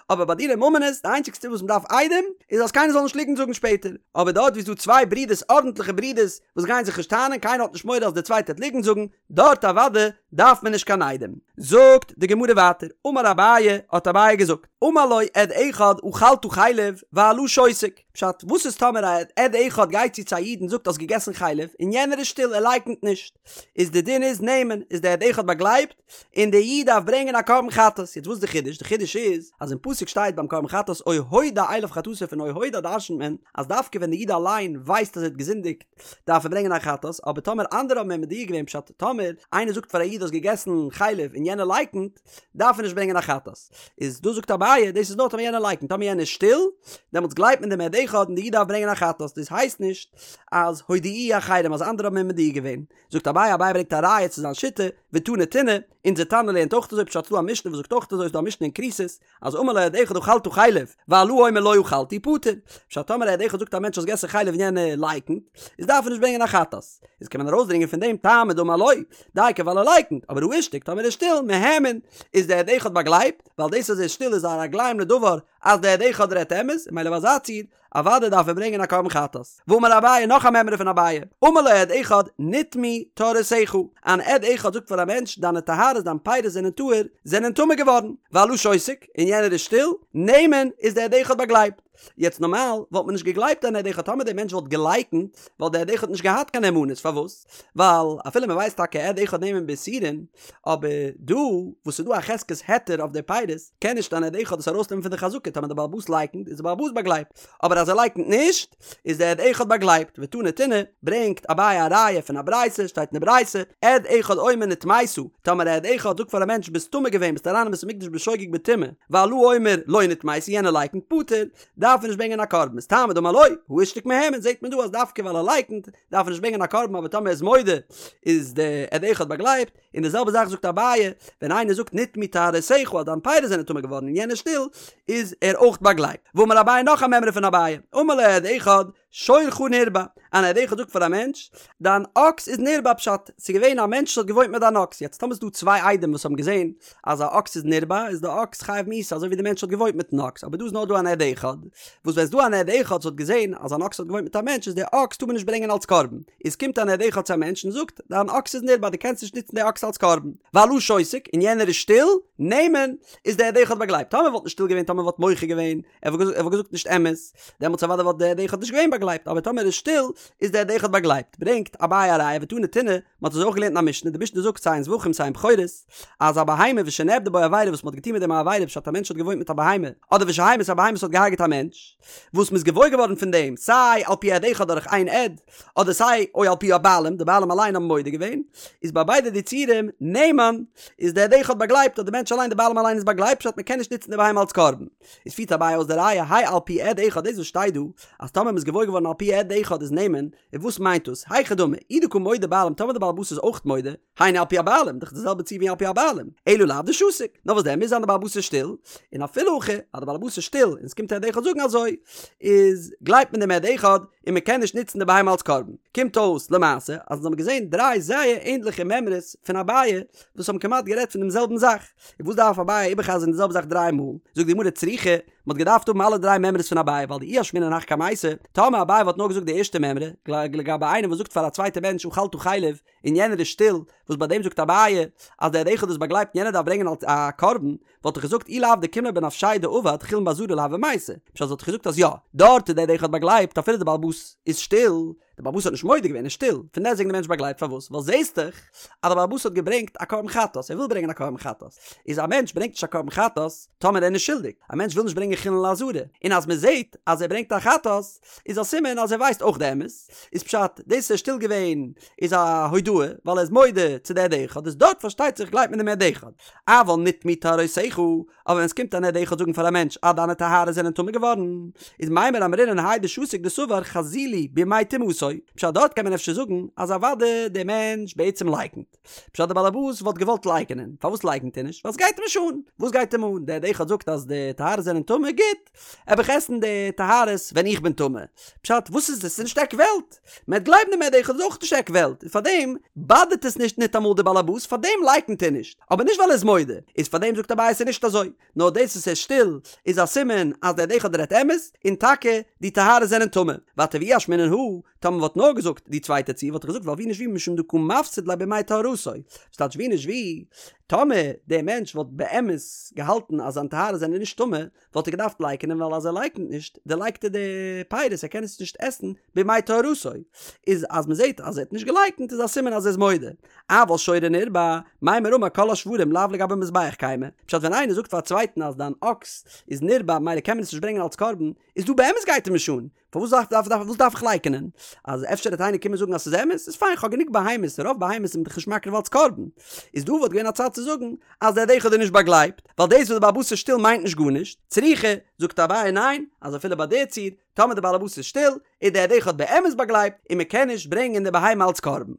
אבער ביי דיני ממונות די איינציגסטע וואס מ'דארף עדים איז אז קיינער זאל נישט ליגנט זאגן שפעטער, אבער דארט ווי ס'דא צוויי ברידערס ארנטליכע ברידערס וואס גייען זיך נישט טענה'ן קיינער האט נישט מורא אז דער צווייטער וועט ליגנט זאגן, דארט אוודאי דארף מען נישט קיין עדים. זאגט די גמרא ווייטער, אמר אביי, האט אביי געזאגט, אמר לו עד אחד אכלת חלב והלה שותק, פשט, וואס איז טאמער א עד אחד גייט צו צו א איד און זאגט האסט געגעסן חלב און יענער איז שטיל ער לייקנט נישט, איז די דין איז נאמן, איז די עד אחד באגלייבט, און די איד דארף ברענגען א קרבן חטאת, יעצט וואס איז די חידוש? די חידוש איז אז אין פסוק שטייט ביים קרבן חטאת או הודע אליו חטאתו פון או הודע דרשנ'ט מען אז דווקא ווען די איד אליין ווייסט אז ער האט געזינדיגט דארף ער ברענגען א חטאת, אבער טאמער אנדערע האבן אים מודיע געווען פשט טאמער איינער זאגט פאר א איד האסט געגעסן חלב און יענער לייקנט דארף ער נישט ברענגען א חטאת, איז דא זאגט אביי דאס איז נאר טאמער יענער לייקנט טאמער יענער איז שטיל דעמאלטס גלייבט מען דעם עד אחד און די איד דארף ברענגען א חטאת דאס הייסט נישט אז הודיעוהו אחרים אז אנדערע האבן אים מודיע געווען. זאגט אביי, אביי ברענגט א ראיה צו זיין שיטה, ותני תונא, אונזער תנא לערנט אויך אזוי, פשט ס'דא א משנה וואס זאגט אויך אזוי, ס'דא א משנה אין כריתות, אז אמר לו עד אחד אכלת חלב, והלה אומר לא אכלתי פטור, פשט טאמער א עד אחד זאגט א מענטש האסט געסן חלב און יענער לייקנט, איז דארף ער נישט ברענגען א חטאת, איז קען מען ארויסדרינגען פון דעם טעמא דאמר לא, דייקא ווייל ער לייקנט, אבער הא אישתיק טאמער ער איז שטיל, מהימן, איז דער עד אחד באגלייבט, ווייל דאס אז ער איז שטיל איז א רגליים לדבר אז דער עד אחד רעדט אמת, און ממילא ביי אזא ציור, אוודאי דארף ער ברענגען א קרבן חטאת. ואמר אביי, נאך א מימרא פון אביי, אמר לו עד אחד נטמאו טהרותיך, אן עד אחד זאגט פאר א מענטש דיינע טהרות דיין פירות זענען טהור, זענען טמא געווארן, והלה שותק, און יענער איז שטיל, נאמן, איז דער עד אחד באגלייבט. יעצט נארמאל וואלט מען נישט געגלייבט אן עד אחד טאמער דער מענטש וואלט געלייקנט, וואלט דער עד אחד נישט געהאט קיין נאמנות, פארוואס? ווייל אפילו מען ווייסט טאקע עד אחד נאמן באיסורין, אבער דא וואס ס'איז דא א חזקת היתר אויף די פירות, קען נישט אן עד אחד עס ארויסנעמען פון די חזקה, טאמער דער בעל הבית לייקנט איז דער בעל הבית באגלייבט, אבער אז ער לייקנט נישט, איז דער עד אחד באגלייבט, ותני תונא, ברענגט אביי א ראיה פון א ברייתא, שטייט אין די ברייתא, עד אחד אומר נטמאת, טאמער א עד אחד זאגט פאר א מענטש ביסט טמא געווען ביסט אריין אין בית המקדש בשוגג בטומאה, והלה אומר לא נטמאתי יענער לייקנט פטור, דארף ער נישט ברענגען א קרבן, איז טעמא דאמר לא, הא אישתיק מהימן, זעט מען דא אז דווקא ווייל ער לייקנט, דארף ער נישט ברענגען א קרבן אבער טאמער ער איז מודה איז די עד אחד באגלייבט, און די זעלבע זאך זאגט אביי, ווען איינער זאגט נטמאו טהרותיך אז דיין פירות זענען טמא געווארן און יענער איז שטיל, איז ער אויך באגלייבט. ואמר אביי נאך א מימרא פון אביי, אמר לו עד אחד. שורך נרבע, אן עד אחד זאגט פאר א מענטש, דיין אקס איז נרבע פשט, ס'איז געווען א מענטש וואס האט געוואוינט מיט דיין אקס, יעצט טאמער ס'איז דא צוויי עדים וואס האבן געזען אז א אקס איז נרבע, איז די אקס חייב מיתה אזוי ווי די מענטש האט געוואוינט מיטן אקס, אבער דא איז נאר דא אן עד אחד, וואס ווען ס'איז דא אן עד אחד וואס האט געזען אז אן אקס האט געוואוינט מיט א מענטש איז די אקס טאר מען נישט ברענגען אלס קרבן, איז קומט אן עד אחד צו א מענטש און זאגט, דיין אקס איז נרבע דו קענסט נישט נוצן די אקס אלס קרבן, והלה שותק, און יענער איז שטיל, נאמן, איז די עד אחד באגלייבט, טאמער וואלט נישט שטיל געווען טאמער וואלט מוחה געווען, ער וואלט געזאגט נישט אמת, דעמאלטס אוודאי וואלט די עד אחד נישט געווען באגלייבט, אבער טאמער ער איז שטיל, איז די עד אחד באגלייבט. ברענגט אביי א ראיה ותני תונא, מען האט אזוי אויך געלערנט אין א משנה, די משנה זאגט סיי אין זבחים סיי אין בכורות, אז א בהמה ושנעבדה בו עבירה וואס מען האט געטון מיט דעם א עבירה פשט א מענטש האט געוואוינט מיט א בהמה, אדער ושהמית א בהמה וואס האט געהארגעט א מענטש, וואס מען איז געוואויר געווארן פון דעם סיי על פי עד אחד דורך איין עד, אדער סיי או על פי הבעלים, די בעלים אליין האבן מודה געווען, איז ביי ביידע די ציורים נאמן, איז די עד אחד באגלייבט אז די מענטש אליין די בעלים אליין איז באגלייבט פשט מען קען נישט נוצן די בהמה אלס קרבן. איז פירט אביי אויס די ראיה האי על פי עד אחד דאס וואס שטייט דא אז טאמער מ'איז געוואויר געווארן על פי עד אחד איז נאמן, און וואס מיינט דאס? היכי דמי, אי דקא מודה בעלים טאמער די בעל הבית איז אויך מודה, היינו על פי הבעלים, דאך די זעלבע ציור ווי על פי הבעלים, אלא לאו דשתיק, נאר וואס דען מוז זיין די בעל הבית איז שטיל, און אפילו הכי אז די בעל הבית איז שטיל און עס קומט א עד אחד זאגן אזוי, איז גלייבט מען דעם עד אחד און מען קען נישט נוצן די בהמה אלס קרבן. קומט אויס למעשה אז אונז האבן געזען דריי זייער ענדליכע מימרות פון אביי וואס האבן כמעט גערעדט פון דעם זעלבן זאך, און וואס דארף אביי איבערחזר'ן די זעלבע זאך דריי מאל? זאגט די גמרא צריכא, מען האט געדארפט האבן אלע דריי מימרות פון אביי ווייל דאי אשמעינן הך קמייתא, טאמער אביי וואלט נאר געזאגט די ערשטע מימרא, לגבי איינעם וואס זאגט פאר א צווייטע מענטש אכלת חלב, און יענער איז שטיל, וואס ביי דעם זאגט אביי אז דער עד אחד איז באגלייבט און יענער דארף ברענגען אלס א קרבן, וואלט איך געזאגט אי לאו דקים ליה בנפשיה דעבד חולין בעזרה לא הוה מייתי, פשט וואלט איך געזאגט אז יא, דארט איז דער עד אחד באגלייבט אפילו דער בעל הבית איז שטיל, דער בעל הבית האט נישט מודה געווען, ער איז שטיל, פון דעסטוועגן דער מענטש באגלייבט, פארוואס? ווייל זעהסט דאך אז דער בעל הבית האט געברענגט א קרבן חטאת, ער וויל ברענגען א קרבן חטאת, איז א מענטש ברענגט נישט א קרבן חטאת טאמער ער איז נישט שולדיג, א מענטש וויל נישט ברענגען חולין לעזרה, און אז מען זעהט אז ער ברענגט א חטאת, איז א סימן אז ער ווייסט אויך די אמת, איז פשט, דאס ער איז שטיל געווען איז א הודאה, ווייל ער איז מודה צו די עד אחד, איז דארט פארשטייט זיך גלייבט מען דעם עד אחד. אבל נטמאו טהרותיך, אבער ווען עס קומט אן עד אחד זאגן פאר א מענטש אז דיינע טהרות זענען טמא געווארן, איז מימר אמרינן האי דשתיק דסבר חזי לי בימי טומאתו, פשט דארט קען מען אפשר זאגן אז אוודאי דער מענטש בעצם לייקנט. פשט דער באלעבאס וואלט געוואלט לייקענען, פארוואס לייקנט ער נישט? ווייל עס גייט אים נישט אן. וואס גייט אים אן? דער עד אחד זאגט אז די טהרות זענען טמא, גוט, וועל איך עסן די טהרות ווען איך בין טמא. פשט, וואס איז עס? ס'איז נישט עק וועלט. מען וועט גלייבן דעם עד אחד איז אויך נישט עק וועלט, און פארדעם באדערט עס נישט ניטאמאל די באלעבאס, פארדעם לייקנט ער נישט, אבער נישט ווייל ער איז מודה, איז פארדעם זאגט אביי ס'איז נישט אזוי, נאר דאס וואס ער איז שטיל איז א סימן אז דער עד אחד רעדט אמת, און טאקע די טהרות זענען טמא. ווייטער ואי אשמעינן הא, טאמער מ'וואלט נאר געזאגט די צווייטע ציור וואלט איך געזאגט ווייל ווי נישט ווי משום דקא מפסיד ליה בימי טהרתו, ס'טייטש ווי נישט ווי, טאמער דער מענטש וואלט באמת געהאלטן אז זיין טהרות זענען נישט טמא, וואלט ער געדארפט לייקענען ווייל אז ער לייקענט נישט דערלייגט ער די פירות ער קען עס נישט עסן בימי טהרתו, איז אז מען זעט אז ער האט נישט געלייקנט איז א סימן אז ער איז מודה. אבל שורו נרבע, מימר אמר כל השוורים לאו לגבי מזבח קיימי, פשט ווען איינער זאגט פאר א צווייטן אז דיין אקס איז נרבע ממילא קען מען עס נישט ברענגען אלס קרבן, איז דא באמת גייט אים נישט אן, פארוואס דארף דארף דארף וואס דארף איך לייקענען? אז אפשר וועט איינער קומען זאגן אז ס'איז אמת, איז פיין כ'האב גענוג בהמות, רוב בהמות איז מען דאך נישט מקריב אלס קרבן. איז דא וואלט געווען א צד צו זאגן אז דער עד אחד איז נישט באגלייבט, ווייל דאס וואס דער בעל הבית איז שטיל מיינט נישט גארנישט, צריכא, זאגט אביי ניין, אז אפילו ביי די ציור, טאמער דער בעל הבית איז שטיל, איז דער עד אחד באמת באגלייבט, און מ'קען נישט ברענגען די בהמה אלס קרבן.